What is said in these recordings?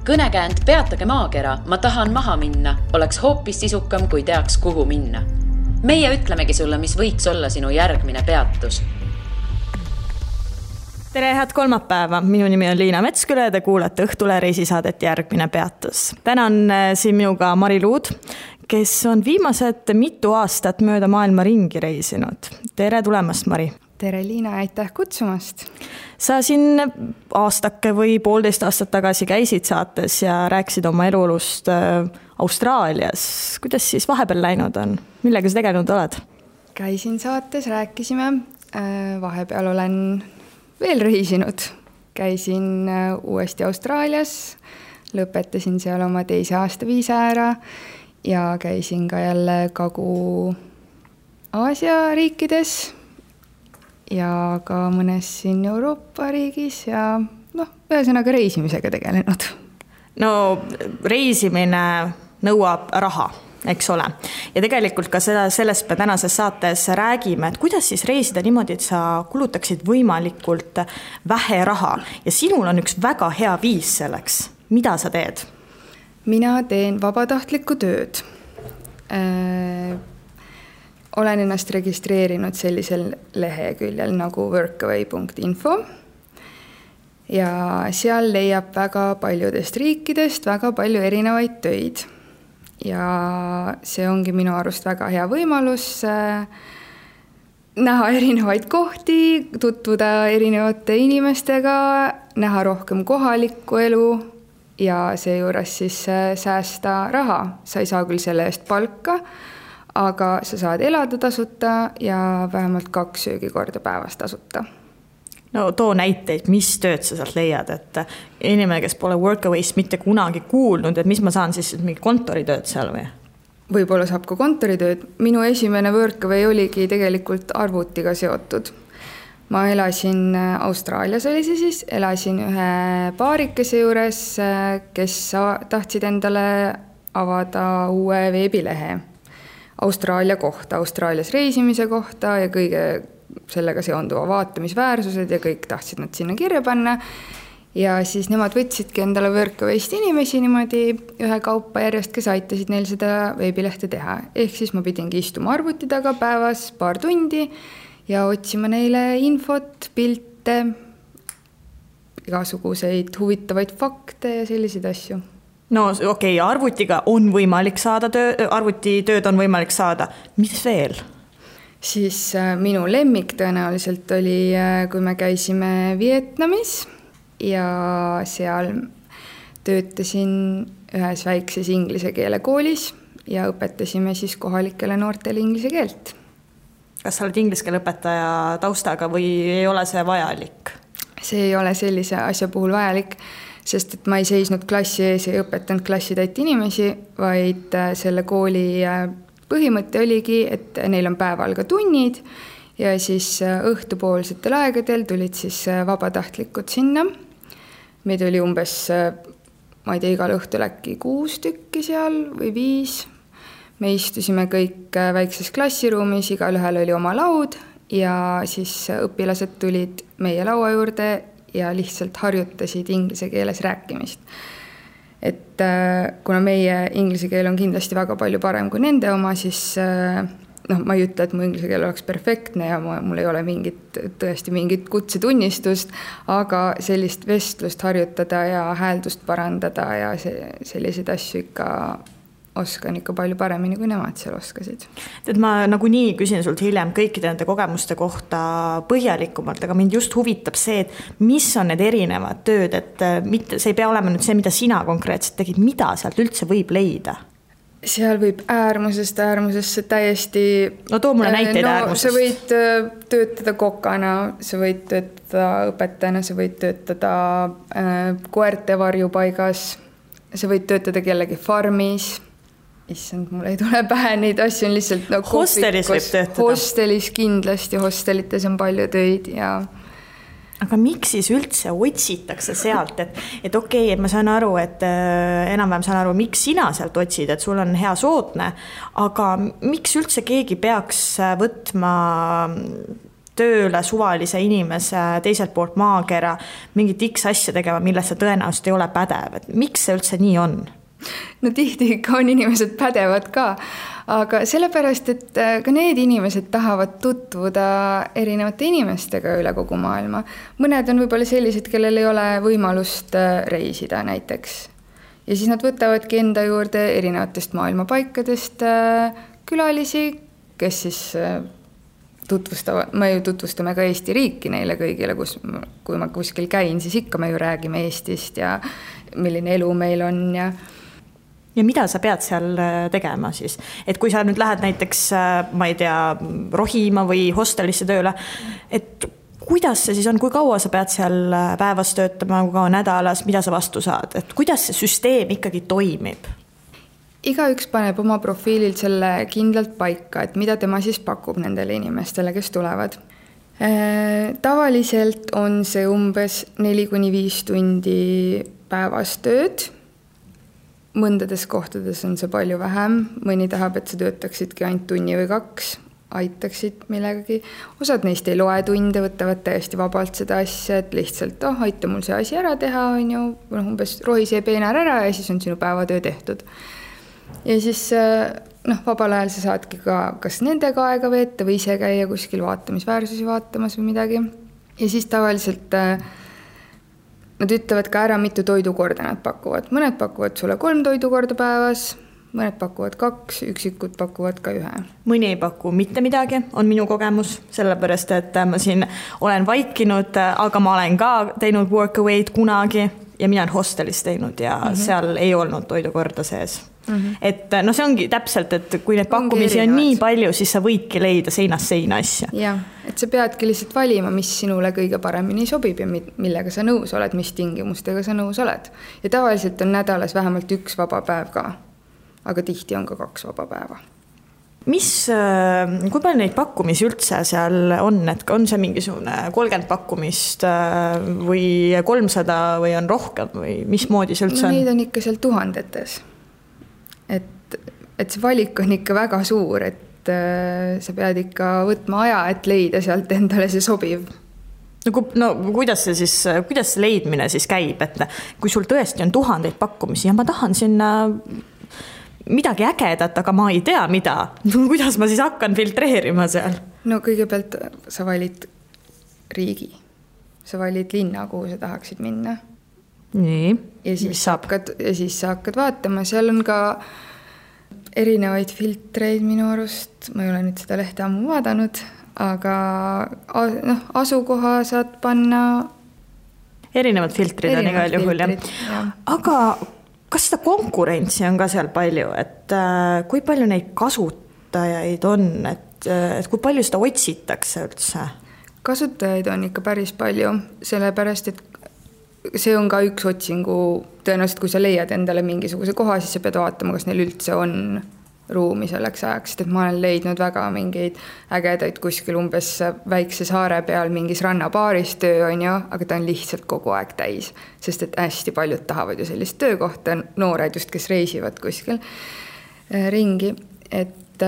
Kõnekäänd Peatage maakera, ma tahan maha minna, oleks hoopis sisukam, kui teaks, kuhu minna. Meie ütlemegi sulle, mis võiks olla sinu järgmine peatus. Tere, head kolmapäeva. Minu nimi on Liina Metsküle ja te kuulate Õhtule reisisaadet Järgmine peatus. Täna on siin minuga Mari Luud, kes on viimased mitu aastat mööda maailma ringi reisinud. Tere tulemast, Mari. Tere, Liina, aitäh kutsumast. Sa siin aastake või 1,5 aastat tagasi käisid saates ja rääkisid oma elulust Austraalias. Kuidas siis vahepeal läinud on? Millega sa tegelenud oled? Käisin saates, rääkisime. Vahepeal olen veel reisinud. Käisin uuesti Austraalias, lõpetasin seal oma 2. aasta viisa ära ja käisin ka jälle Kagu-Aasia riikides ja ka mõnes siin Euroopa riigis ja ühesõnaga reisimisega tegelenud. No reisimine nõuab raha, eks ole. Ja tegelikult ka sellest me tänases saates räägime, et kuidas siis reisida niimoodi, et sa kulutaksid võimalikult vähe raha. Ja sinul on üks väga hea viis selleks. Mida sa teed? Mina teen vabatahtlikku tööd. Olen ennast registreerinud sellisel leheküljel nagu workaway.info ja seal leiab väga paljudest riikidest väga palju erinevaid töid. Ja see ongi minu arust väga hea võimalus näha erinevaid kohti, tutvuda erinevate inimestega, näha rohkem kohalikku elu ja seejuures siis säästa raha. Sa ei saa küll selle eest palka, aga sa saad elada tasuta ja vähemalt 2 söögikorda päevas tasuta. No too näiteid, mis tööd sa sealt leiad, et inimene, kes pole Workaway'st mitte kunagi kuulnud, et mis ma saan siis mingi kontoritööd seal või? Võib-olla saab ka kontoritööd. Minu esimene Workaway oligi tegelikult arvutiga seotud. Ma elasin Austraalias, elasin ühe paarikese juures, kes tahtsid endale avada uue veebilehe Austraalia kohta, Austraalias reisimise kohta ja kõige sellega seonduva vaatamisväärsused ja kõik tahtsid nad sinna kirja panna. Ja siis nemad võtsidki endale Workaway'st inimesi niimoodi ühe kaupa järjest, kes aitasid neil seda veebilehte teha. Ehk siis ma pidingi istuma arvuti taga päevas 2 tundi ja otsima neile infot, pilte, igasuguseid huvitavaid fakte ja selliseid asju. No okei, arvutiga on võimalik saada arvutitööd on võimalik saada. Mis veel? Siis minu lemmik tõenäoliselt oli, kui me käisime Vietnamis ja seal töötasin ühes väikses inglise keele koolis ja õpetasime siis kohalikele noortele inglise keelt. Kas sa oled inglise keele õpetaja taustaga või ei ole see vajalik? See ei ole sellise asja puhul vajalik, sest et ma ei seisnud klassi ees ja õpetanud klassitäit inimesi, vaid selle kooli põhimõte oligi, et neil on päeval ka tunnid ja siis õhtupoolsetel aegadel tulid siis vabatahtlikud sinna. Meid oli umbes, ma ei tea, igal õhtul äkki 6 tükki seal või 5. Me istusime kõik väikses klassiruumis, igal ühel oli oma laud ja siis õpilased tulid meie laua juurde ja lihtsalt harjutasid inglise keeles rääkimist. Et kuna meie inglise keel on kindlasti väga palju parem kui nende oma, siis ma ei ütle, et mu inglise keel oleks perfektne ja mul ei ole tõesti mingit kutsetunnistust, aga sellist vestlust harjutada ja hääldust parandada ja selliseid asju ikka oskan ikka palju paremini, kui nemad seal oskasid. Ma nagunii küsin sult hiljem kõikide nende kogemuste kohta põhjalikumalt, aga mind just huvitab see, et mis on need erinevad tööd, et see ei pea olema nüüd see, mida sina konkreetselt tegid, mida sealt üldse võib leida? Seal võib äärmusesse täiesti... No too mulle näiteid äärmusest. Sa võid töötada kokana, sa võid töötada õpetajana, sa võid töötada koerte varjupaigas, sa võid töötada kellegi farmis. Issand, mul ei tule pähe, neid asju on lihtsalt Hostelis võib töötada? Hostelis kindlasti, hostelites on palju töid ja... Aga miks siis üldse otsitakse sealt, et okei, et ma saan aru, et enam-vähem saan aru, miks sina sealt otsid, et sul on hea sootne, aga miks üldse keegi peaks võtma tööle suvalise inimese teiselt poolt maakera mingit X asja tegema, milles sa tõenäoliselt ei ole pädev, et miks see üldse nii on? No tihti ikka on inimesed pädevad ka, aga sellepärast, et ka need inimesed tahavad tutvuda erinevate inimestega üle kogu maailma. Mõned on võib-olla sellised, kellel ei ole võimalust reisida näiteks. Ja siis nad võtavadki enda juurde erinevatest maailmapaikadest külalisi, kes siis me ju tutvustame ka Eesti riiki neile kõigile, kui ma kuskil käin, siis ikka me ju räägime Eestist ja milline elu meil on ja mida sa pead seal tegema siis? Et kui sa nüüd lähed näiteks, ma ei tea, rohima või hostelisse tööle, et kuidas see siis on, kui kaua sa pead seal päevas töötama, kui kaua nädalas, mida sa vastu saad? Et kuidas see süsteem ikkagi toimib? Igaüks paneb oma profiililt selle kindlalt paika, et mida tema siis pakub nendele inimestele, kes tulevad. Tavaliselt on see umbes 4-5 tundi päevas tööd. Mõndades kohtades on see palju vähem. Mõni tahab, et sa töötaksidki ainult tunni või 2, aitaksid millegagi. Osad neist ei loe tunde, võtavad täiesti vabalt seda asja, et lihtsalt, aita mul see asi ära teha, on ju, umbes rohi see peenar ära ja siis on sinu päevatöö tehtud. Ja siis vabal ajal sa saadki ka kas nendega aega veeta või ise käia kuskil vaatamisväärsusi vaatamas või midagi. Ja siis tavaliselt nad ütlevad ka ära, mitu toidukorda nad pakuvad. Mõned pakuvad sulle 3 toidukorda päevas, mõned pakuvad 2, üksikud pakuvad ka 1. Mõni ei paku mitte midagi, on minu kogemus, sellepärast, et ma siin olen vaikinud, aga ma olen ka teinud workaway'd kunagi ja mina olen hostelis teinud ja seal ei olnud toidukorda sees. Et see ongi täpselt, et kui need pakkumisi on nii palju, siis sa võidki leida seinast seina asja. Jah, et sa peadki lihtsalt valima, mis sinule kõige paremini sobib ja millega sa nõus oled, mis tingimustega sa nõus oled. Ja tavaliselt on nädalas vähemalt 1 vaba päev ka, aga tihti on ka 2 vaba päeva. Kui palju neid pakkumisi üldse seal on, et on see mingisugune 30 pakkumist või 300 või on rohkem või mismoodi see üldse on? Neid on ikka seal tuhandetes. Et see valik on ikka väga suur, et sa pead ikka võtma aja, et leida sealt endale see sobiv. No kuidas see leidmine siis käib, et kui sul tõesti on 1000 pakkumisi ja ma tahan sinna midagi ägedat, aga ma ei tea mida, kuidas ma siis hakkan filtreerima seal? No kõigepealt sa valid riigi, sa valid linna, kuhu sa tahaksid minna. Nii, ja siis sa hakkad vaatama, seal on ka erinevaid filtreid minu arust, ma ei ole nüüd seda lehte ammu vaadanud, aga asukoha saad panna. Erinevad filtrid on igal juhul, jah. Aga kas seda konkurentsi on ka seal palju, et kui palju neid kasutajaid on, et kui palju seda otsitakse üldse? Kasutajaid on ikka päris palju, sellepärast, et see on ka üks otsingu, tõenäoliselt kui sa leiad endale mingisuguse koha, siis sa pead vaatama, kas neil üldse on ruumi selleks ajaks, et ma olen leidnud väga mingeid ägedaid kuskil umbes väikse saare peal mingis rannapaaris töö on ju, aga ta on lihtsalt kogu aeg täis, sest et hästi paljud tahavad ju sellist töökohta, noored just, kes reisivad kuskil ringi, et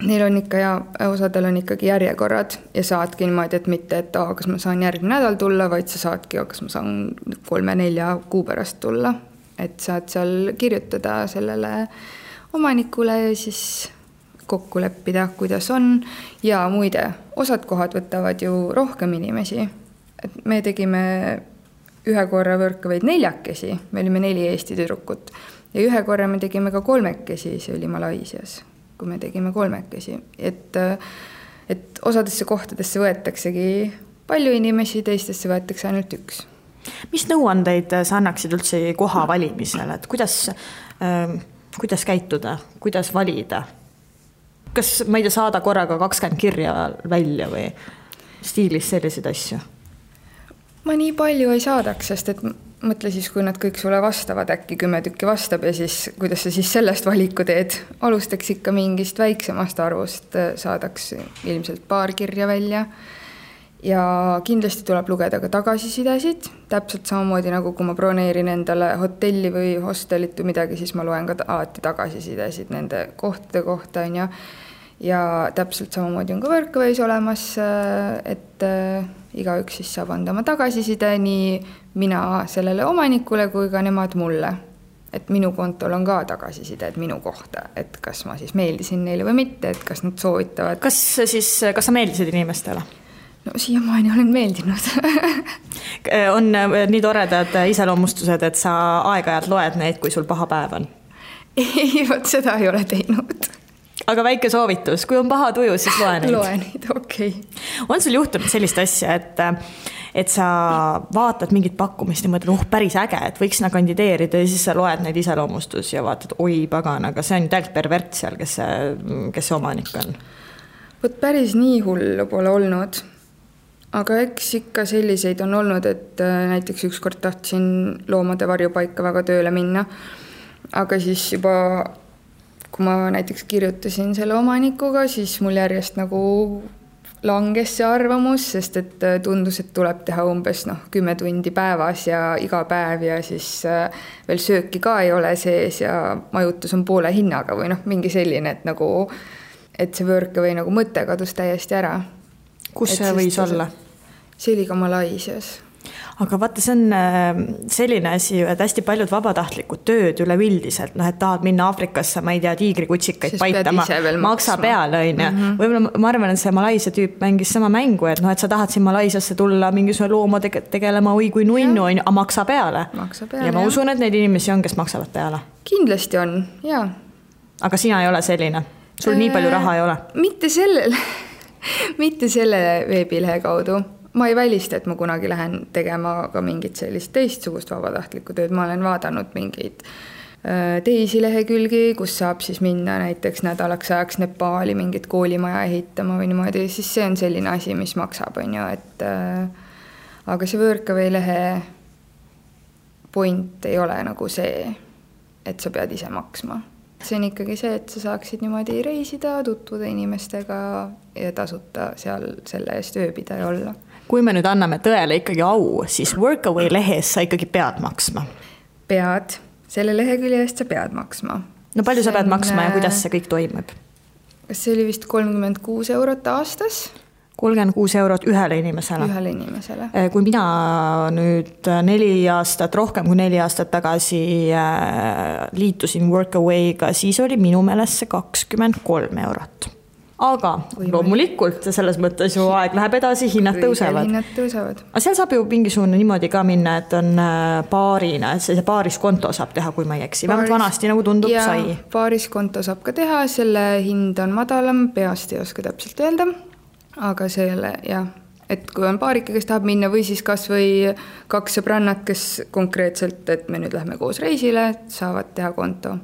neil on ikka ja osadel on ikkagi järjekorrad ja saadki niimoodi, et mitte, et kas ma saan järgmine nädal tulla, vaid sa saadki, kas ma saan 3-4 kuu pärast tulla, et saad seal kirjutada sellele omanikule ja siis kokku leppida, kuidas on. Ja muide, osad kohad võtavad ju rohkem inimesi. Et me tegime ühe korra võrkavaid 4, me olime 4 Eesti tüdrukut ja ühe korra me tegime ka 3, see oli Malaisias, kui me tegime 3, et osadesse kohtadesse võetaksegi palju inimesi, teistesse võetakse ainult 1. Mis nõuandeid sa annaksid üldse koha valimisel, et kuidas käituda, kuidas valida? Kas ma ei tea, saada korraga 20 kirja välja või stiilis selliseid asju? Ma nii palju ei saadaks, sest et mõtle siis, kui nad kõik sulle vastavad, äkki 10 tükki vastab ja siis kuidas sa siis sellest valiku teed. Alustaks ikka mingist väiksemast arvust, saadaks ilmselt 2 kirja välja ja kindlasti tuleb lugeda ka tagasisidesid. Täpselt samamoodi nagu kui ma broneerin endale hotelli või hostelit või midagi, siis ma loen ka alati tagasisidesid nende kohtade kohta. ja täpselt samamoodi on ka Workaway's olemas, et igaüks siis saab anda oma tagasiside, nii mina sellele omanikule kui ka nemad mulle. Et minu kontol on ka tagasiside, et minu kohta, et kas ma siis meeldisin neile või mitte, et kas nad soovitavad. Kas sa meeldisid inimestele? No siiamaani olen meeldinud. On nii toredad iseloomustused, et sa aeg-ajalt loed neid, kui sul paha päev on? Ei, vot seda ei ole teinud. Aga väike soovitus, kui on paha tuju, siis loe neid. Loe neid, okei. On sul juhtunud sellist asja, et sa vaatad mingit pakkumist ja mõtled, päris äge, et võiks kandideerida ja siis sa loed neid iseloomustus ja vaatad, oi pagan, aga see on täielt pervert seal, kes see omanik on. Võt päris nii hullu pole olnud, aga eks ikka selliseid on olnud, et näiteks ükskord tahtsin loomade varjupaika väga tööle minna, aga siis juba kui ma näiteks kirjutasin selle omanikuga, siis mul järjest nagu langes see arvamus, sest et tundus, et tuleb teha umbes 10 tundi päevas ja iga päev ja siis veel sööki ka ei ole sees ja majutus on poole hinnaga või mingi selline, et nagu et see Workaway nagu mõte kadus täiesti ära. Kus see võis olla? See oli ka Malaisias. Aga vaata, see on selline asi, et hästi paljud vabatahtlikud tööd üleüldiselt, et tahad minna Aafrikasse, ma ei tea, tiigrikutsikaid paitama, maksa peale, Võib-olla ma arvan, et see Malaisia tüüp mängis sama mängu, et sa tahad siin Malaisiasse tulla mingisugune looma tegelema oi kui nunnu, aga maksa peale. Ja ma usun, et neid inimesi on, kes maksavad peale. Kindlasti on, jaa. Aga sina ei ole selline? Sul nii palju raha ei ole? Mitte selle veebilehe kaudu. Ma ei välista, et ma kunagi lähen tegema ka mingit sellist teistsugust vabatahtlikku tööd. Ma olen vaadanud mingeid teisi lehekülgi, kus saab siis minna näiteks nädalaks ajaks Nepaali mingit koolimaja ehitama või niimoodi, siis see on selline asi, mis maksab, et aga see Workaway lehe point ei ole nagu see, et sa pead ise maksma. See on ikkagi see, et sa saaksid niimoodi reisida, tutvuda inimestega ja tasuta seal selle eest ööbida ja olla. Kui me nüüd anname tõele ikkagi au, siis Workaway lehes sa ikkagi pead maksma? Pead. Selle lehekülje eest sa pead maksma. No palju sa pead maksma ja kuidas see kõik toimub? Kas see oli vist 36 eurot aastas? 36 eurot ühele inimesele. Ühele inimesele. Kui mina nüüd 4 aastat, rohkem kui 4 aastat tagasi liitusin Workaway'ga, siis oli minu meelest see 23 eurot. Aga loomulikult selles mõttes ju aeg läheb edasi, hinnad tõusevad. Aga seal saab ju mingisugune niimoodi ka minna, et on paarina, et see paariskonto saab teha, kui ma ei eksi. Vähemalt vanasti nagu tundub sai. Ja paariskonto saab ka teha, selle hind on madalam, peast ei oska täpselt öelda. Aga selle, jah, et kui on paarike, kes tahab minna või siis kas või 2 sõbrannat, kes konkreetselt, et me nüüd lähme koos reisile, saavad teha konto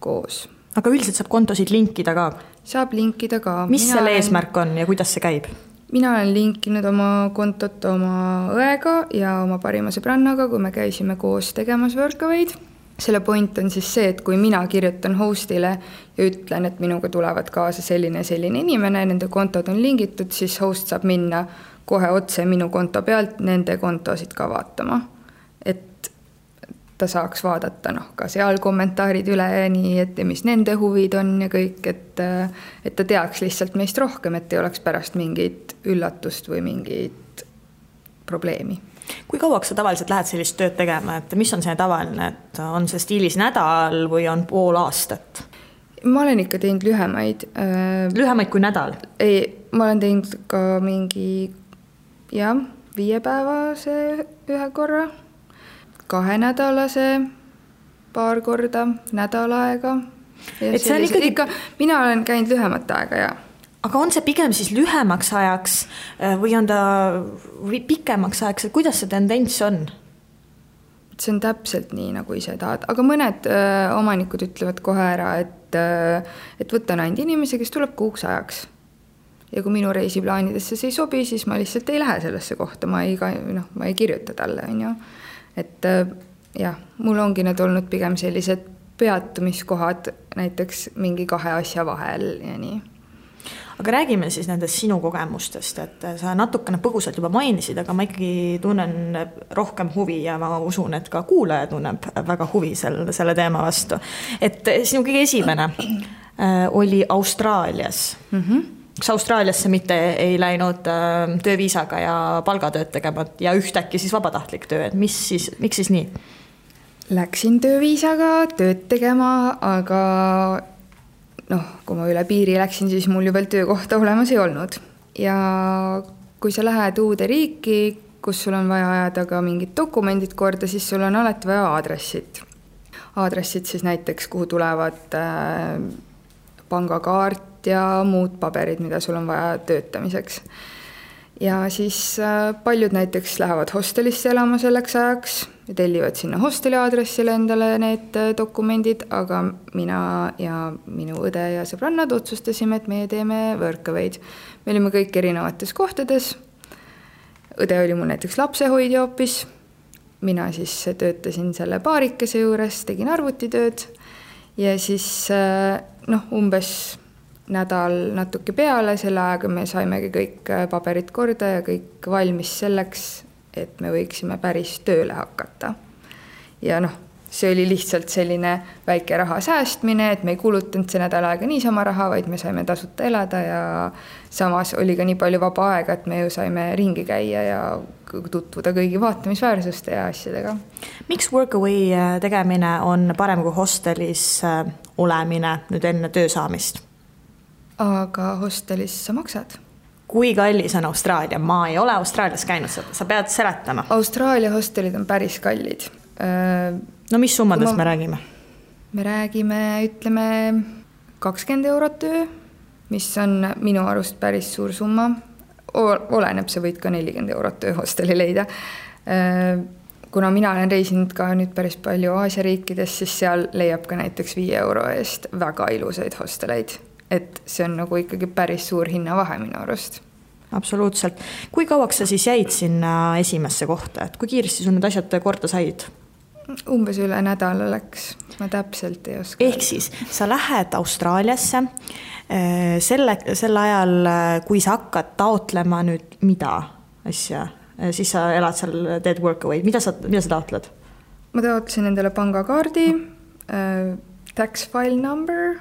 koos. Aga üldiselt saab kontosid linkida ka? Saab linkida ka. Mis selle eesmärk on ja kuidas see käib? Mina olen linkinud oma kontot oma õega ja oma parima sõbrannaga, kui me käisime koos tegemas Workaway'd. Selle point on siis see, et kui mina kirjutan hostile ja ütlen, et minuga tulevad kaasa selline inimene, nende kontod on lingitud, siis host saab minna kohe otse minu konto pealt nende kontosid ka vaatama. Et ta saaks vaadata ka seal kommentaarid üle ja nii, et mis nende huvid on ja kõik, et ta teaks lihtsalt meist rohkem, et ei oleks pärast mingit üllatust või mingit probleemi. Kui kauaks sa tavaliselt lähed sellist tööd tegema, et mis on see tavaline, et on see stiilis nädal või on pool aastat? Ma olen ikka teinud lühemaid. Lühemaid kui nädal? Ei, ma olen teinud ka mingi 5-päevase ühe korra, 2-nädalase paar korda, nädal aega. Et see on ikkagi... Mina olen käinud lühemat aega, jah. Aga on see pigem siis lühemaks ajaks või on ta pikemaks ajaks, et kuidas see tendents on? See on täpselt nii, nagu ise tahad. Aga mõned omanikud ütlevad kohe ära, et võtan ainult inimesi, kes tuleb kuuks ajaks. Ja kui minu reisiplaanidesse see ei sobi, siis ma lihtsalt ei lähe sellesse kohta. Ma ei kirjuta talle. Et jah, mul ongi need olnud pigem sellised peatumiskohad näiteks mingi 2 asja vahel ja nii. Aga räägime siis nendest sinu kogemustest, et sa natukene põgusalt juba mainisid, aga ma ikkagi tunnen rohkem huvi ja ma usun, et ka kuulaja tunneb väga huvi selle teema vastu. Et sinu kõige esimene oli Austraalias. Kas Austraaliasse mitte ei läinud tööviisaga ja palgatööd tegema ja ühtäkki siis vabatahtlik töö, et miks siis nii? Läksin tööviisaga tööd tegema, aga kui ma üle piiri läksin, siis mul ju veel töökohta olemas ei olnud. Ja kui sa lähed uude riiki, kus sul on vaja ajada ka mingid dokumendid korda, siis sul on alati vaja aadressid. Aadressid siis näiteks, kuhu tulevad pangakaart ja muud paberid, mida sul on vaja töötamiseks. Ja siis paljud näiteks lähevad hostelisse elama selleks ajaks ja tellivad sinna hosteli aadressile endale need dokumendid, aga mina ja minu õde ja sõbrannad otsustasime, et meie teeme Workaway'd. Me olime kõik erinevates kohtades. Õde oli mul näiteks lapsehoidja hoopis. Mina siis töötasin selle paarikese juures, tegin arvutitööd ja siis umbes nädal natuke peale, selle ajaga me saimegi kõik paberid korda ja kõik valmis selleks, et me võiksime päris tööle hakata. Ja see oli lihtsalt selline väike raha säästmine, et me ei kulutanud see nädal aega niisama raha, vaid me saime tasuta elada ja samas oli ka nii palju vaba aega, et me ju saime ringi käia ja tutvuda kõigi vaatamisväärsuste ja asjadega. Miks Workaway tegemine on parem kui hostelis olemine nüüd enne töö saamist? Aga hostelis sa maksad. Kui kallis on Austraalia? Ma ei ole Austraalias käinud, sa pead seletama. Austraalia hostelid on päris kallid. No mis summadest me räägime? Me räägime, ütleme, 20 eurot öö, mis on minu arust päris suur summa. Oleneb, sa võid ka 40 eurot öö hosteli leida. Kuna mina olen reisinud ka nüüd päris palju Aasia riikides, siis seal leiab ka näiteks 5 euro eest väga ilusaid hosteleid. Et see on nagu ikkagi päris suur hinnavahe minu arust. Absoluutselt. Kui kauaks sa siis jäid sinna esimesse kohta? Et kui kiiresti sul need asjad korda said? Umbes üle nädala läks. Ma täpselt ei oska. Ehk siis sa lähed Austraaliasse selle ajal, kui sa hakkad taotlema nüüd mida asja, siis sa elad seal, teed Workaway. Mida sa taotled? Ma taotlesin endale pangakaardi, tax file number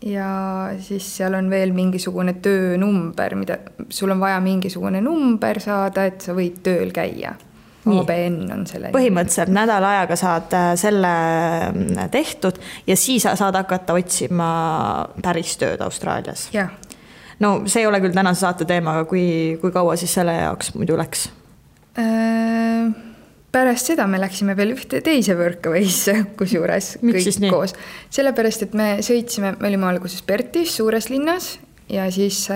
ja siis seal on veel mingisugune töönumber, mida sul on vaja mingisugune number saada, et sa võid tööl käia. ABN on selle. Põhimõtteliselt nädal ajaga saad selle tehtud ja siis saad hakata otsima päris tööd Austraalias. Jah. No see ei ole küll tänase saate teema, aga kui kaua siis selle jaoks muidu läks? Pärast seda me läksime veel ühte teise Workaway'sse, kusjuures kõik koos. Sellepärast, et me sõitsime, me olime alguses Perthis, suures linnas ja siis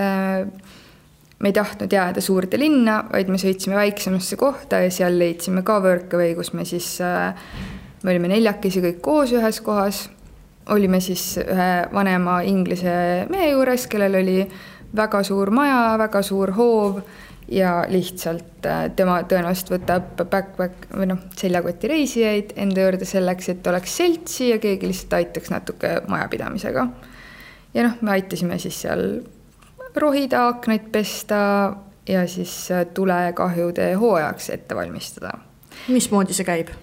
me ei tahtnud jääda suurde linna, vaid me sõitsime väiksemasse kohta ja seal leidsime ka Workaway, kus me siis, me olime 4 kõik koos ühes kohas. Olime siis ühe vanema inglise mehe juures, kellel oli väga suur maja, väga suur hoov ja lihtsalt tema tõenäoliselt võtab backpack või seljakoti reisijaid enda juurde selleks, et oleks seltsi ja keegi lihtsalt aitaks natuke majapidamisega. Ja me aitasime siis seal rohida, aknaid pesta ja siis tulekahjude hooajaks ette valmistada. Mismoodi see käib?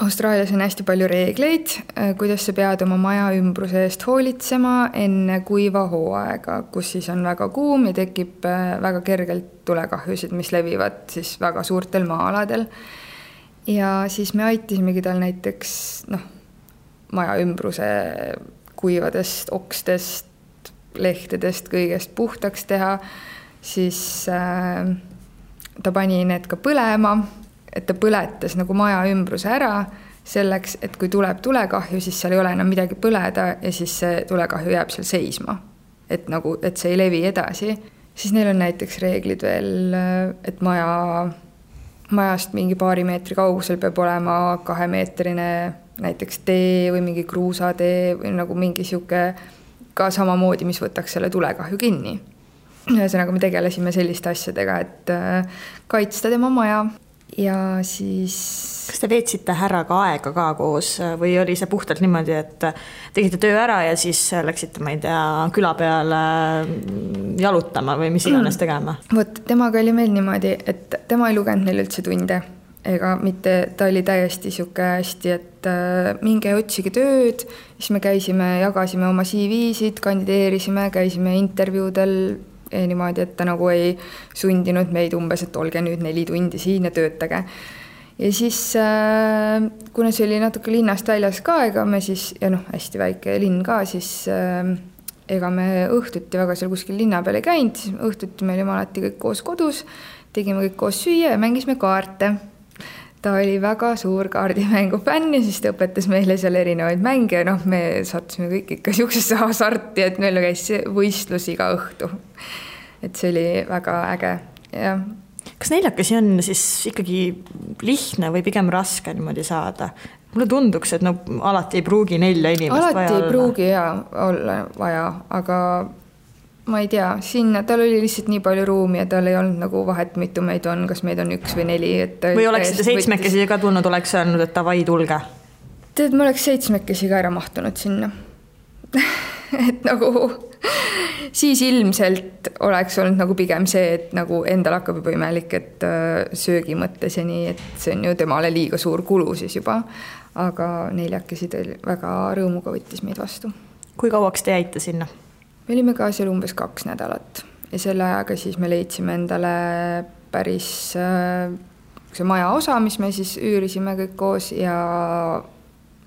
Austraalias on hästi palju reegleid, kuidas sa pead oma maja ümbruse eest hoolitsema enne kuiva hooaega, kus siis on väga kuum ja tekib väga kergelt tulekahjusid, mis levivad siis väga suurtel maa-aladel. Ja siis me aitasimegi tal näiteks maja ümbruse kuivadest, okstest, lehtedest, kõigest puhtaks teha, siis ta pani need ka põlema, et ta põletas nagu maja ümbruse ära selleks, et kui tuleb tulekahju, siis seal ei ole enam midagi põleda ja siis see tulekahju jääb seal seisma. Et see ei levi edasi. Siis neil on näiteks reeglid veel, et majast mingi paari meetri kaugusel peab olema 2-meetrine näiteks tee või mingi kruusatee või nagu mingi siuke ka samamoodi, mis võtaks selle tulekahju kinni. Ühesõnaga me tegelesime selliste asjadega, et kaitsta tema maja. Ja siis... Kas te veetsite härraga aega ka koos või oli see puhtalt niimoodi, et tegite töö ära ja siis läksite, ma ei tea, küla peale jalutama või mis iganes tegema? Vot, temaga oli meil niimoodi, et tema ei lugenud meil üldse tunde. ega mitte, ta oli täiesti sihuke hästi, et minge otsige tööd, siis me käisime, jagasime oma CV-sid, kandideerisime, käisime intervjuudel niimoodi, et ta nagu ei sundinud meid umbes, et olge nüüd 4 tundi siin ja töötage. Ja siis, kuna see oli natuke linnast väljas ka, ega me siis, ja hästi väike linn ka, siis ega me õhtuti väga seal kuskil linna peal ei käinud, siis õhtuti me olime alati kõik koos kodus, tegime kõik koos süüa ja mängisime kaarte. Ta oli väga suur kaardimängu fänn ja siis ta õpetas meile seal erinevaid mänge ja me sattusime kõik ikka siuksesse hasarti, et meil käis võistlus iga õhtu. Et see oli väga äge. Ja. Kas neljakesi on siis ikkagi lihtne või pigem raske niimoodi saada? Mulle tunduks, et alati ei pruugi 4 inimest alati vaja olla. Alati ei pruugi olla vaja, aga ma ei tea, sinna tal oli lihtsalt nii palju ruumi ja tal ei olnud nagu vahet, mitu meid on, kas meid on 1 või 4. Või oleksite 7 ka tulnud, oleks öelnud, et davai, tulge? Tead, ma oleks 7 ka ära mahtunud sinna. Et nagu siis ilmselt oleks olnud nagu pigem see, et nagu endal hakkab juba imelik, et söögi mõttes ja nii, et see on ju temale liiga suur kulu siis juba. Aga 4 väga rõõmuga võttis meid vastu. Kui kauaks te jäite sinna? Me olime ka seal umbes 2 nädalat ja selle ajaga siis me leidsime endale päris see maja osa, mis me siis üürisime kõik koos ja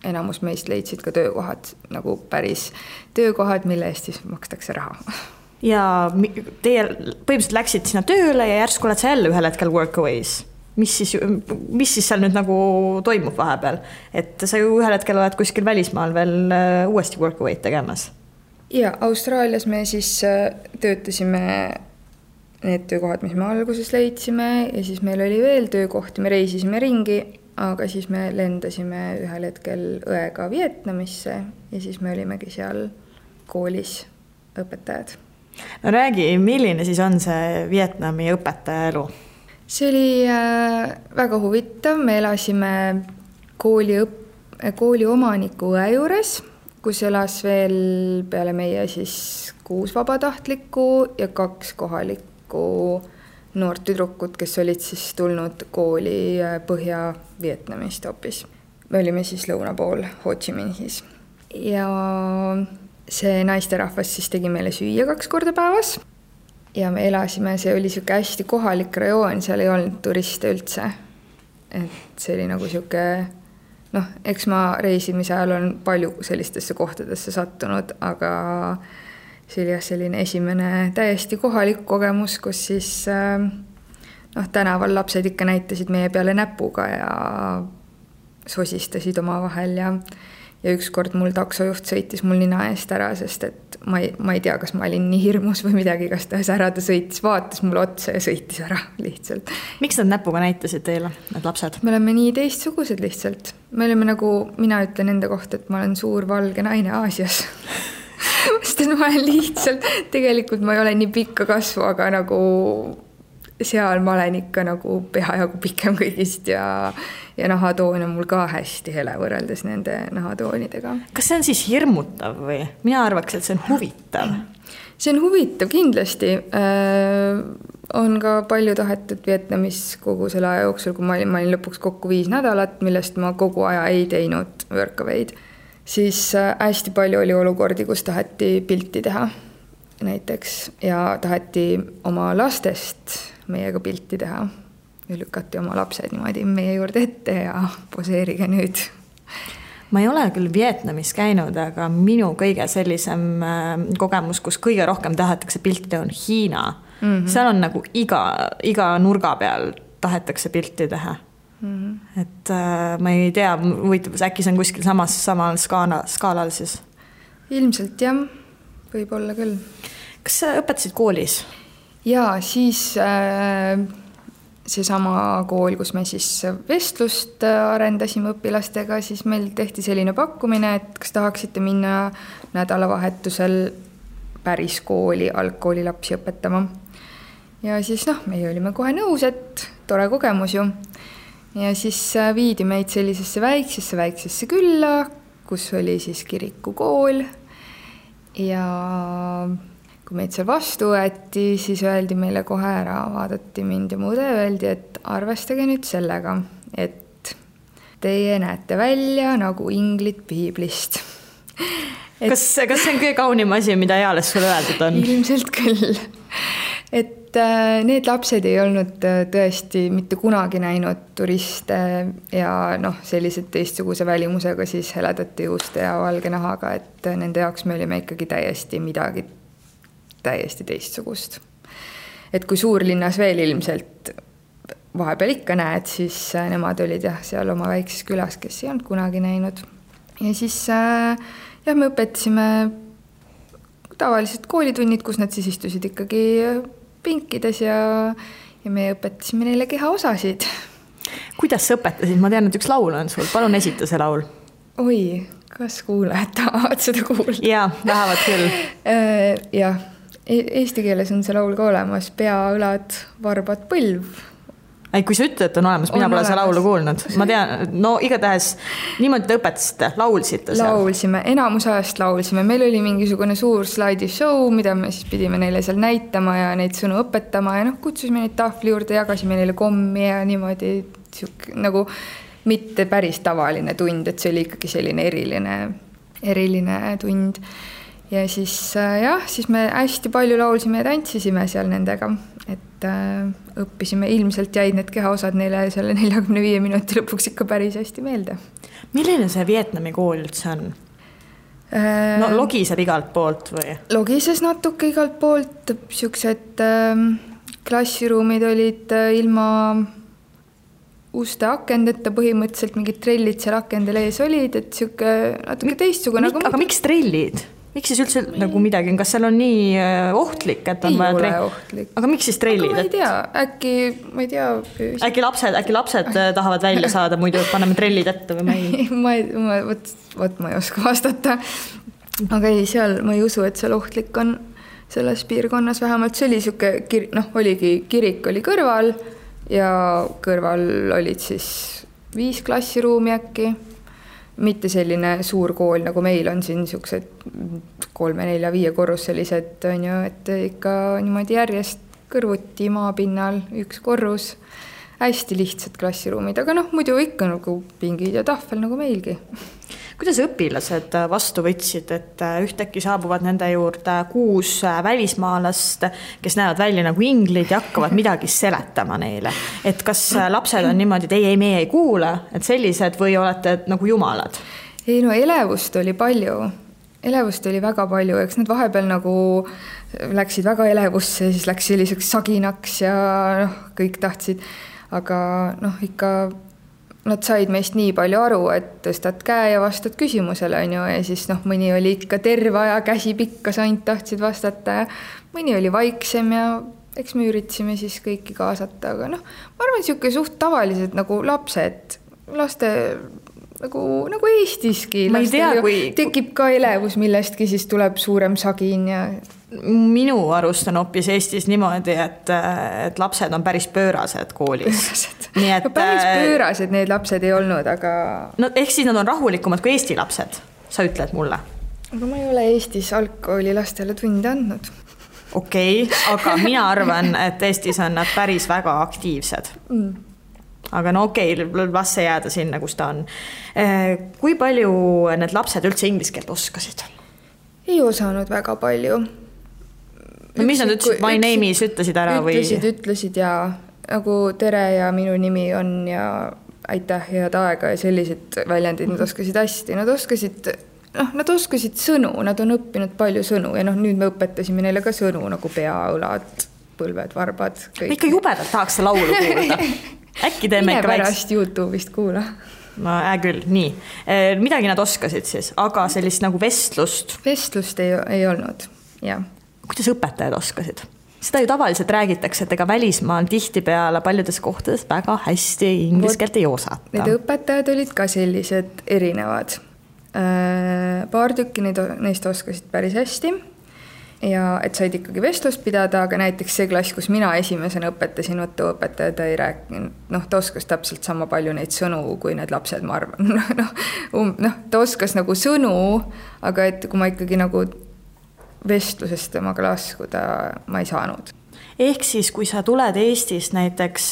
enamus meist leidsid ka töökohad, nagu päris töökohad, mille eest siis makstakse raha. Ja teie põhimõtteliselt läksid sinna tööle ja järsku oled sa jälle ühel hetkel workaways. Mis siis seal nüüd nagu toimub vahepeal? Et sa ju ühel hetkel oled kuskil välismaal veel uuesti workaway'd tegemas. Ja Austraalias me siis töötasime need töökohad, mis me alguses leidsime ja siis meil oli veel töökohti, me reisisime ringi, aga siis me lendasime ühel hetkel õega Vietnamisse ja siis me olimegi seal koolis õpetajad. No räägi, milline siis on see Vietnami õpetaja elu? See oli väga huvitav, me elasime kooli omaniku õe juures, kus elas veel peale meie siis 6 vabatahtlikku ja 2 kohalikku noort tüdrukut, kes olid siis tulnud kooli Põhja-Vietnamist hoopis. Me olime siis lõuna pool Ho Chi Minhis. Ja see naisterahvas siis tegi meile süüa 2 korda päevas. Ja me elasime, see oli siuke hästi kohalik rajoon, seal ei olnud turiste üldse. Et see oli nagu siuke... eks ma reisimise ajal on palju sellistesse kohtadesse sattunud, aga see oli selline esimene täiesti kohalik kogemus, kus siis tänaval lapsed ikka näitasid meie peale näpuga ja sosistasid oma vahel ja ükskord mul taksojuht sõitis mul nina eest ära, sest et ma ei tea, kas ma olin nii hirmus või midagi, kas ta ära ta sõitis, vaatas mulle otsa ja sõitis ära lihtsalt. Miks nad näpuga näitasid teile, need lapsed? Me oleme nii teistsugused lihtsalt. Me oleme nagu, mina ütlen enda kohta, et ma olen suur valge naine Aasias. Sest et ma olen lihtsalt, tegelikult ma ei ole nii pikka kasvu, aga nagu seal ma olen ikka nagu peajagu pikem kõigist ja nahatoon on mul ka hästi hele võrreldes nende nahatoonidega. Kas see on siis hirmutav või? Mina arvaks, et see on huvitav. See on huvitav kindlasti. On ka palju tahetud Vietnamis kogu selle aja jooksul, kui ma olin lõpuks kokku 5 nädalat, millest ma kogu aja ei teinud workawayd. Siis hästi palju oli olukordi, kus taheti pilti teha näiteks ja taheti oma lastest meiega pilti teha ja lükati oma lapsed niimoodi meie juurde ette ja poseerige nüüd. Ma ei ole küll Vietnamis käinud, aga minu kõige sellisem kogemus, kus kõige rohkem tahetakse pilti teha, on Hiina. Seal on nagu iga nurga peal tahetakse pilti teha. Et ma ei tea, äkki see on kuskil samal skaalal siis? Ilmselt jah, võib olla küll. Kas sa õpetasid koolis? Ja siis seesama kool, kus me siis vestlust arendasime õpilastega, siis meil tehti selline pakkumine, et kas tahaksite minna nädalavahetusel päris kooli, algkooli lapsi õpetama. Ja siis meie olime kohe nõus, et tore kogemus ju. Ja siis viidi meid sellisesse väiksesse külla, kus oli siis kirikukool ja kui meid seal vastu võeti, siis öeldi meile kohe ära, vaadati mind ja muude, öeldi, et arvestage nüüd sellega, et teie näete välja nagu inglid piiblist. Kas see on kõige kaunim asi, mida eales sulle öeldud on? Ilmselt küll. Et need lapsed ei olnud tõesti mitte kunagi näinud turiste ja sellised teistsuguse välimusega siis heledate juuste ja valge nahaga, et nende jaoks me olime ikkagi midagi täiesti teistsugust. Et kui suurlinnas veel ilmselt vahepeal ikka näed, siis nemad olid seal oma väikses külas, kes ei olnud kunagi näinud. Ja siis me õpetasime tavalised koolitunnid, kus nad siis istusid ikkagi pinkides ja me õpetasime neile kehaosasid. Kuidas sa õpetasid? Ma tean, et üks laul on sul. Palun esita see laul. Oi, kas kuulajad tahavad seda kuulda? Jaa, tahavad küll. Jah, eesti keeles on see laul ka olemas. Pea, õlad, varbad, põlv. Kui sa ütled, et on olemas, mina pole seda laulu kuulnud. Ma tean, igatahes niimoodi te õpetasite, laulsite seal? Laulsime, enamus ajast laulsime. Meil oli mingisugune suur slaidishow, mida me siis pidime neile seal näitama ja neid sõnu õpetama ja kutsusime neid tahvli juurde, jagasime neile kommi ja niimoodi nagu mitte päris tavaline tund, et see oli ikkagi selline eriline tund. Ja siis siis me hästi palju laulsime ja tantsisime seal nendega, et õppisime, ilmselt jäid need kehaosad neile selle 45 minuti lõpuks ikka päris hästi meelde. Milline see Vietnami kool üldse on? Logiseb igalt poolt või? Logises natuke igalt poolt, siuksed klassiruumid olid ilma uste akendeta, põhimõtteliselt mingid trellid seal akendel ees olid, et siuke natuke teistsugune. Aga miks trellid? Miks siis üldse nagu midagi, kas seal on nii ohtlik, et on vaja trellid? Ei ole ohtlik. Aga miks siis trellid? Aga ma ei tea. Äkki lapsed tahavad välja saada, muidu paneme trellid ette või ma ei? Ma ei oska vastata. Aga ei, seal ma ei usu, et seal ohtlik on selles piirkonnas. Vähemalt see oli siuke, oligi kirik oli kõrval ja kõrval olid siis 5 klassiruumi äkki. Mitte selline suur kool, nagu meil on siin siuksed 3, 4, 5 korruselised, et ikka niimoodi järjest kõrvuti maapinnal 1 korrus. Hästi lihtsad klassiruumid, aga muidu ikka nagu pingid ja tahvel nagu meilgi. Kuidas õpilased vastu võtsid, et ühtäkki saabuvad nende juurde 6 välismaalast, kes näevad välja nagu inglid ja hakkavad midagi seletama neile? Et kas lapsed on niimoodi, et meie ei kuule, et sellised või olete nagu jumalad? Ei, elevust oli palju. Elevust oli väga palju, eks need vahepeal nagu läksid väga elevusse, siis läks selliseks saginaks ja kõik tahtsid, aga ikka nad said meist nii palju aru, et tõstad käe ja vastad küsimusele, ja siis mõni oli ikka terve aja käsi pikkas, ainult tahtsid vastata ja mõni oli vaiksem ja eks me üritasime siis kõiki kaasata, aga ma arvan, siuke suht tavalised nagu lapsed, laste nagu Eestiski. Ma ei tea, tekib ka elevus millestki, siis tuleb suurem sagin ja minu arust on hoopis Eestis niimoodi, et lapsed on päris pöörased koolis. Päris pöörased need lapsed ei olnud, aga ehk siis nad on rahulikumad kui Eesti lapsed, sa ütled mulle? Aga ma ei ole Eestis algkooli lastele tunde andnud. Okei, aga mina arvan, et Eestis on nad päris väga aktiivsed. Aga las see jääda sinna, kus ta on. Kui palju need lapsed üldse inglise keelt oskasid? Ei osanud väga palju. Mis nad ütlesid? My name is ütlesid ära või? Ütlesid ja nagu tere ja minu nimi on ja aitäh head aega ja sellised väljendid nad oskasid hästi. Nad oskasid sõnu, nad on õppinud palju sõnu ja nüüd me õpetasime neile ka sõnu nagu pea, õlad, põlved, varbad. Ma ikka jubedalt tahaks see laulu kuulda. Äkki teeme ikka pärast YouTube'ist kuula. Küll, nii. Midagi nad oskasid siis, aga sellist nagu vestlust? Vestlust ei olnud, jah. Kuidas õpetajad oskasid? Seda ju tavaliselt räägitakse, et ega välismaal tihtipeale paljudes kohtades väga hästi inglise keelt ei osata. Need õpetajad olid ka sellised erinevad. Paar tükki neist oskasid päris hästi ja et said ikkagi vestlust pidada, aga näiteks see klass, kus mina esimesena õpetasin, õpetaja ta ei rääkinud, ta oskas täpselt sama palju neid sõnu kui need lapsed, ma arvan. Ta oskas nagu sõnu, aga et kui ma ikkagi nagu vestlusest temaga laskuda, ma ei saanud. Ehk siis, kui sa tuled Eestist näiteks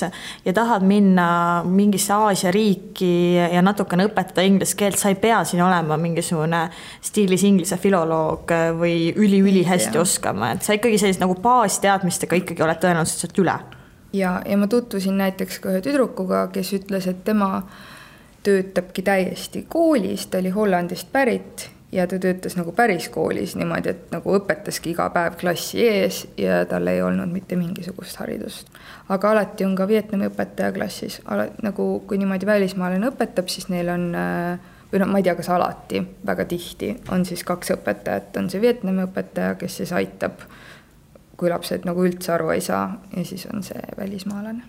ja tahad minna mingisse Aasia riiki ja natukene õpetada inglise keelt, sa ei pea siin olema mingisugune stiilis inglise filoloog või üli hästi oskama, et sa ikkagi sellist nagu baasteadmistega ikkagi oled tõenäoliselt sealt üle. Ja ma tutvusin näiteks ka ühe tüdrukuga, kes ütles, et tema töötabki täiesti koolis, ta oli Hollandist pärit ja ta töötas nagu päris koolis niimoodi, et nagu õpetaski iga päev klassi ees ja tal ei olnud mitte mingisugust haridust. Aga alati on ka Vietnami õpetaja klassis. Nagu kui niimoodi välismaalane õpetab, siis neil on, või ma ei tea, kas alati, väga tihti on siis 2 õpetajat. On see Vietnami õpetaja, kes siis aitab, kui lapsed nagu üldse aru ei saa, ja siis on see välismaalane.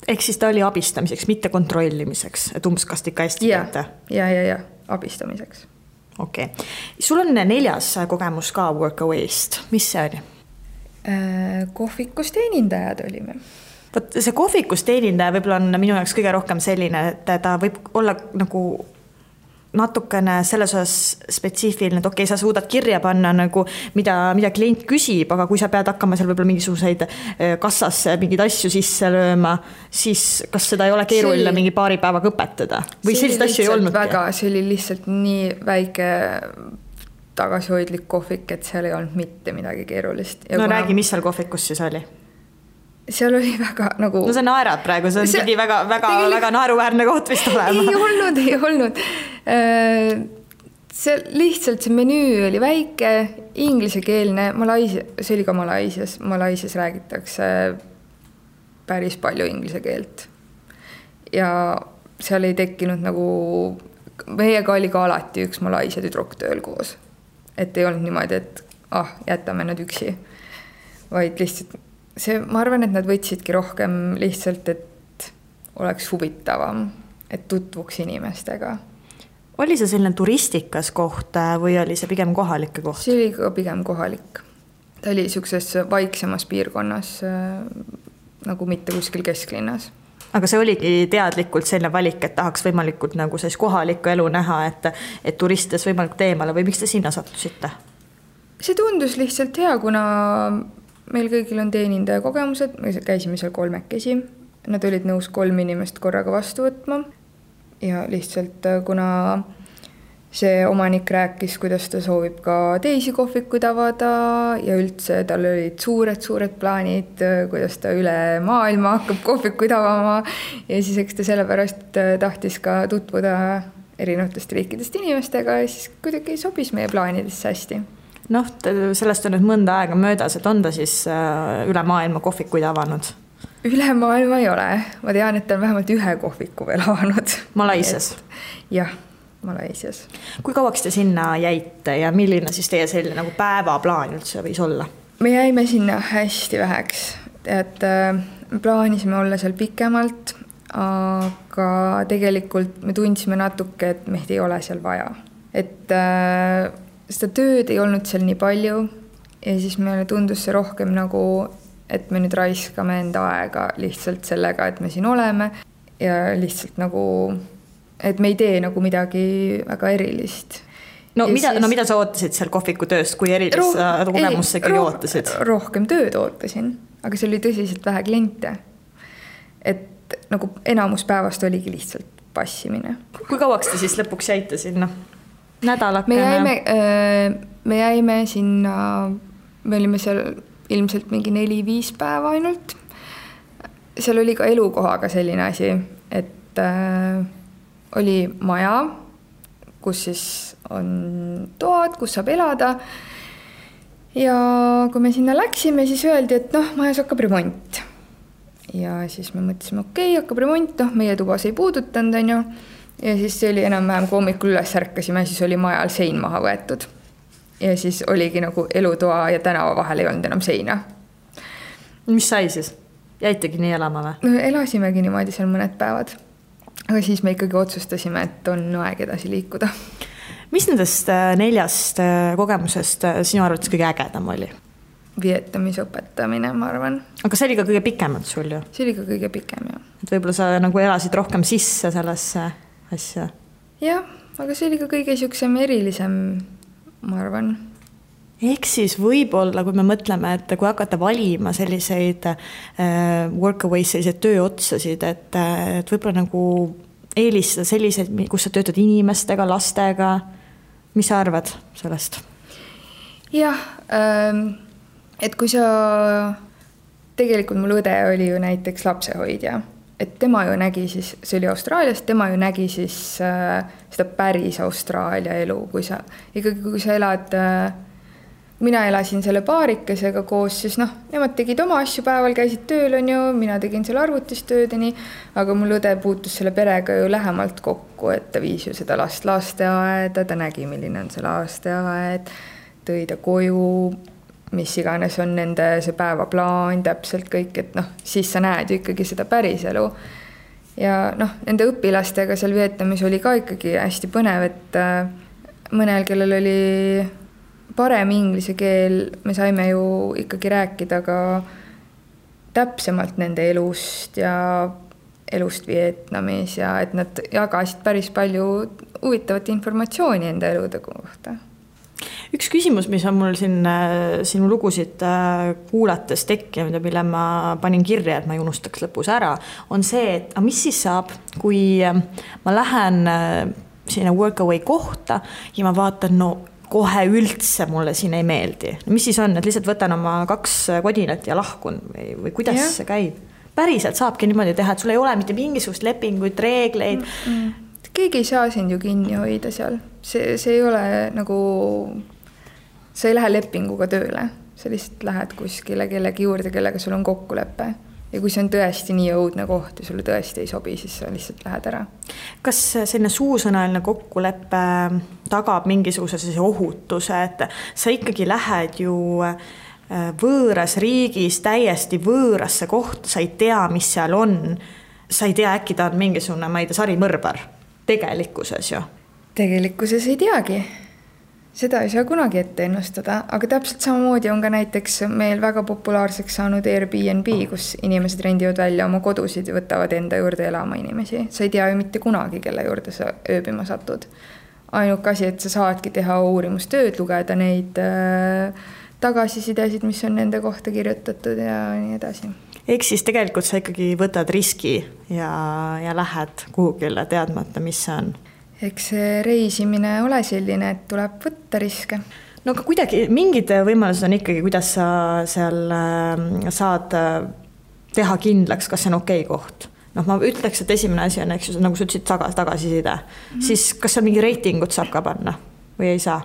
Ehk siis ta oli abistamiseks, mitte kontrollimiseks, et umbes kas ikka hästi teete? Ja, abistamiseks. Okei. Sul on 4. kogemus ka Workaway'st. Mis see oli? Kohvikus teenindajad olime. See kohvikus teenindaja võib-olla on minu jaoks kõige rohkem selline, et ta võib olla nagu natukene selles osas spetsiifiline, et okei, sa suudad kirja panna nagu, mida klient küsib, aga kui sa pead hakkama seal võib-olla mingisuguseid kassasse mingeid asju sisse lööma, siis kas seda ei ole keeruline mingi paari päevaga õpetada? Või sellist asju ei olnud? See oli lihtsalt nii väike tagasihoidlik kohvik, et seal ei olnud mitte midagi keerulist. Ja räägi, mis seal kohvikus siis oli? Seal oli väga nagu... No sa naerad praegu, see on pidi väga naeruväärne koht vist olema. Ei olnud. Lihtsalt see menüü oli väike, inglisekeelne, see oli ka Malaisias räägitakse päris palju inglise keelt. Ja seal ei tekkinud nagu... Meiega oli ka alati üks Malaisia tüdruk tööl koos. Et ei olnud niimoodi, et jätame nad üksi. Vaid lihtsalt... ma arvan, et nad võtsidki rohkem lihtsalt, et oleks huvitavam, et tutvuks inimestega. Oli see selline turistikas koht või oli see pigem kohalike koht? See oli ka pigem kohalik. Ta oli sellises vaiksemas piirkonnas, nagu mitte kuskil kesklinnas. Aga see oligi teadlikult selline valik, et tahaks võimalikult nagu kohalikku elu näha, et turistides võimalikult eemale või miks te sinna sattusite? See tundus lihtsalt hea, kuna meil kõigil on teenindaja kogemused, me käisime seal 3. Nad olid nõus 3 inimest korraga vastu võtma ja lihtsalt kuna see omanik rääkis, kuidas ta soovib ka teisi kohvikuid avada ja üldse tal olid suured plaanid, kuidas ta üle maailma hakkab kohvikuid avama ja siis eks ta sellepärast tahtis ka tutvuda erinevatest riikidest inimestega ja siis kuidagi sobis meie plaanidesse hästi. Sellest on nüüd mõnda aega möödas, et on ta siis üle maailma kohvikuid avanud? Üle maailma ei ole. Ma tean, et ta on vähemalt 1 kohviku veel avanud. Malaisias? Jah, Malaisias. Kui kauaks te sinna jäite ja milline siis teie selline nagu päevaplaan üldse võis olla? Me jäime sinna hästi väheks. Et plaanisime olla seal pikemalt, aga tegelikult me tundsime natuke, et meid ei ole seal vaja. Et seda tööd ei olnud seal nii palju ja siis meile tundus see rohkem nagu, et me nüüd raiskame enda aega lihtsalt sellega, et me siin oleme ja lihtsalt nagu, et me ei tee nagu midagi väga erilist. Mida sa ootasid seal kohviku tööst, kui erilist kogemust sa ikkagi ootasid? Rohkem tööd ootasin, aga see oli tõsiselt vähe kliente. Et nagu enamus päevast oligi lihtsalt passimine. Kui kauaks te siis lõpuks jäite sinna? Nädalakene? Me jäime sinna, me olime seal ilmselt mingi 4-5 päeva ainult. Seal oli ka elukohaga selline asi, et oli maja, kus siis on toad, kus saab elada. Ja kui me sinna läksime, siis öeldi, et majas hakkab remont. Ja siis me mõtlesime, hakkab remont, meie tubas ei puudutanud, on ju. Ja siis see oli enam-vähem, kui hommikul üles ärkasime, siis oli majal sein maha võetud. Ja siis oligi nagu elutoa ja tänava vahel ei olnud enam seina. Mis sai siis? Jäitegi nii elama või? Elasimegi niimoodi seal mõned päevad. Aga siis me ikkagi otsustasime, et on aeg edasi liikuda. Mis nendest 4 kogemusest sinu arvates kõige ägedam oli? Vietnamis õpetamine, ma arvan. Aga see oli ka kõige pikemalt sul ju? See oli ka kõige pikem, jah. Et võib-olla sa nagu elasid rohkem sisse sellesse asja? Jah, aga see oli ka kõige siuksem erilisem, ma arvan. Ehk siis võib-olla, kui me mõtleme, et kui hakata valima selliseid workaway, selliseid tööotsasid, et võib-olla nagu eelistada selliseid, kus sa töötad inimestega, lastega, mis sa arvad sellest? Jah, et kui sa, tegelikult mul õde oli ju näiteks lapsehoidja, et tema ju nägi siis, see oli Austraalias, tema ju nägi siis seda päris Austraalia elu, kui sa elad, mina elasin selle paarikesega koos, siis nemad tegid oma asju päeval, käisid tööl, on ju, mina tegin selle arvutis töödeni, aga mul õde puutus selle perega ju lähemalt kokku, et ta viis ju seda last lasteaeda, ta nägi, milline on see lasteaed, tõi ta koju, mis iganes on nende see päevaplaan, täpselt kõik, et siis sa näed ju ikkagi seda päris elu. Ja nende õpilastega seal Vietnamis oli ka ikkagi hästi põnev, et mõnel, kellel oli parem inglise keel, me saime ju ikkagi rääkida ka täpsemalt nende elust ja elust Vietnamis ja et nad jagasid päris palju huvitavat informatsiooni enda elude kohta. Üks küsimus, mis on mul siin sinu lugusid kuulates tekkinud ja mille ma panin kirja, et ma ei unustaks lõpus ära, on see, et mis siis saab, kui ma lähen sinna workaway kohta ja ma vaatan, kohe üldse mulle siin ei meeldi. Mis siis on, et lihtsalt võtan oma 2 kodinat ja lahkun või kuidas see käib? Päriselt saabki niimoodi teha, et sul ei ole mitte mingisugust lepinguid, reegleid. Keegi ei saa sind ju kinni hoida seal. See ei ole nagu, sa ei lähe lepinguga tööle. Sa lihtsalt lähed kuskile kellegi juurde, kellega sul on kokkulepe. Ja kui see on tõesti nii õudne koht ja sulle tõesti ei sobi, siis sa lihtsalt lähed ära. Kas selline suusõnaline kokkulepe tagab mingisuguse ohutuse, et sa ikkagi lähed ju võõras riigis, täiesti võõrasse kohta, sa ei tea, mis seal on, sa ei tea, äkki ta on mingisugune, ma ei tea, sarimõrvar tegelikkuses ju? Tegelikkuses ei teagi. Seda ei saa kunagi ette ennustada, aga täpselt samamoodi on ka näiteks meil väga populaarseks saanud Airbnb, kus inimesed rendivad välja oma kodusid ja võtavad enda juurde elama inimesi. Sa ei tea ju mitte kunagi, kelle juurde sa ööbima satud. Ainuke asi, et sa saadki teha uurimustööd, lugeda neid tagasisidesid, mis on nende kohta kirjutatud ja nii edasi. Ehk siis tegelikult sa ikkagi võtad riski ja lähed kuhugile teadmata, mis see on. Eks reisimine ole selline, et tuleb võtta riske. No aga kuidagi mingid võimalused on ikkagi, kuidas sa seal saad teha kindlaks, kas see on okei koht. Ma ütleks, et esimene asi on, eks, nagu sa ütlesid, tagasiside. Siis kas seal mingi reitingut saab ka panna või ei saa?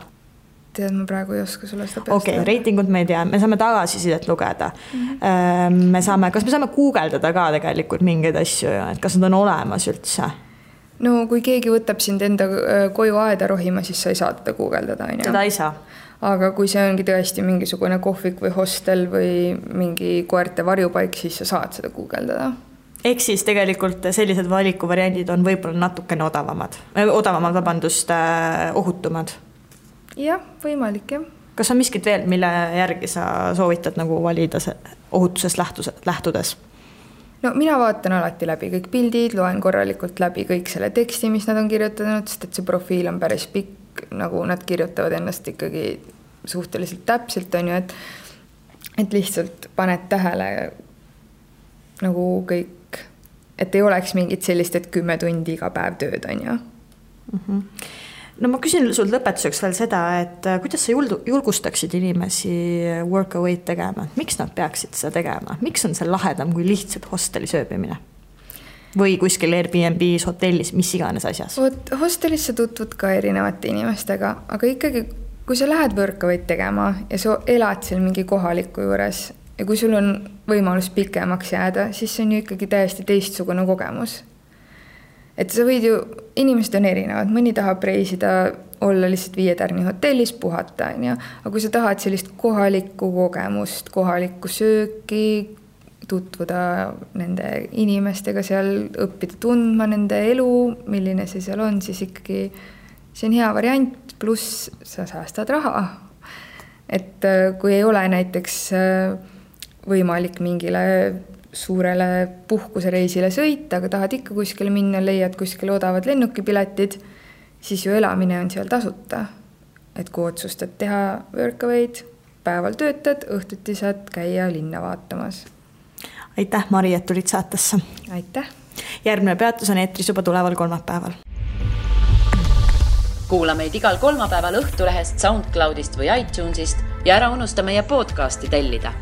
Tead, ma praegu ei oska sulle seda peast. Okei, reitingut me ei tea, me saame tagasisidet lugeda. Kas me saame guugeldada ka tegelikult mingeid asju, et kas nad on olemas üldse? No kui keegi võtab sind enda koju aeda rohima, siis sa ei saa teda guugeldada. Seda ei saa. Aga kui see ongi tõesti mingisugune kohvik või hostel või mingi koerte varjupaik, siis sa saad seda guugeldada. Ehk siis tegelikult sellised valikuvariandid on võib-olla natukene odavamad, ohutumad. Jah, võimalik, jah. Kas on miskit veel, mille järgi sa soovitad nagu valida ohutusest lähtudes? No mina vaatan alati läbi kõik pildid, loen korralikult läbi kõik selle teksti, mis nad on kirjutanud, sest et see profiil on päris pikk, nagu nad kirjutavad ennast ikkagi suhteliselt täpselt, on ju, et lihtsalt paned tähele nagu kõik, et ei oleks mingit sellist, et 10 tundi iga päev tööd, on ju. No ma küsin sul lõpetuseks veel seda, et kuidas sa julgustaksid inimesi workaway'd tegema? Miks nad peaksid seda tegema? Miks on see lahedam kui lihtsalt hostelis ööbimine? Või kuskil Airbnb's, hotellis, mis iganes asjas? Hostelis sa tutvud ka erinevate inimestega, aga ikkagi, kui sa lähed workaway'd tegema ja sa elad seal mingi kohaliku juures ja kui sul on võimalus pikemaks jääda, siis see on ju ikkagi täiesti teistsugune kogemus. Et sa võid ju, inimesed on erinevad, mõni tahab reisida, olla lihtsalt 5 tärni hotellis, puhata, aga kui sa tahad sellist kohalikku kogemust, kohalikku sööki, tutvuda nende inimestega seal, õppida tundma nende elu, milline see seal on, siis ikkagi see on hea variant, pluss sa säästad raha. Et kui ei ole näiteks võimalik mingile suurele puhkusereisile sõita, aga tahad ikka kuskile minna, leiad kuskile odavad lennukipiletid, siis ju elamine on seal tasuta. et kui otsustad teha workaway'd, päeval töötad, õhtuti saad käia linna vaatamas. Aitäh, Mari, et tulid saatesse. Aitäh. Järgmine peatus on eetris juba tuleval kolmapäeval. Kuula meid igal kolmapäeval Õhtulehest, SoundCloudist või iTunesist ja ära unusta meie podcasti tellida.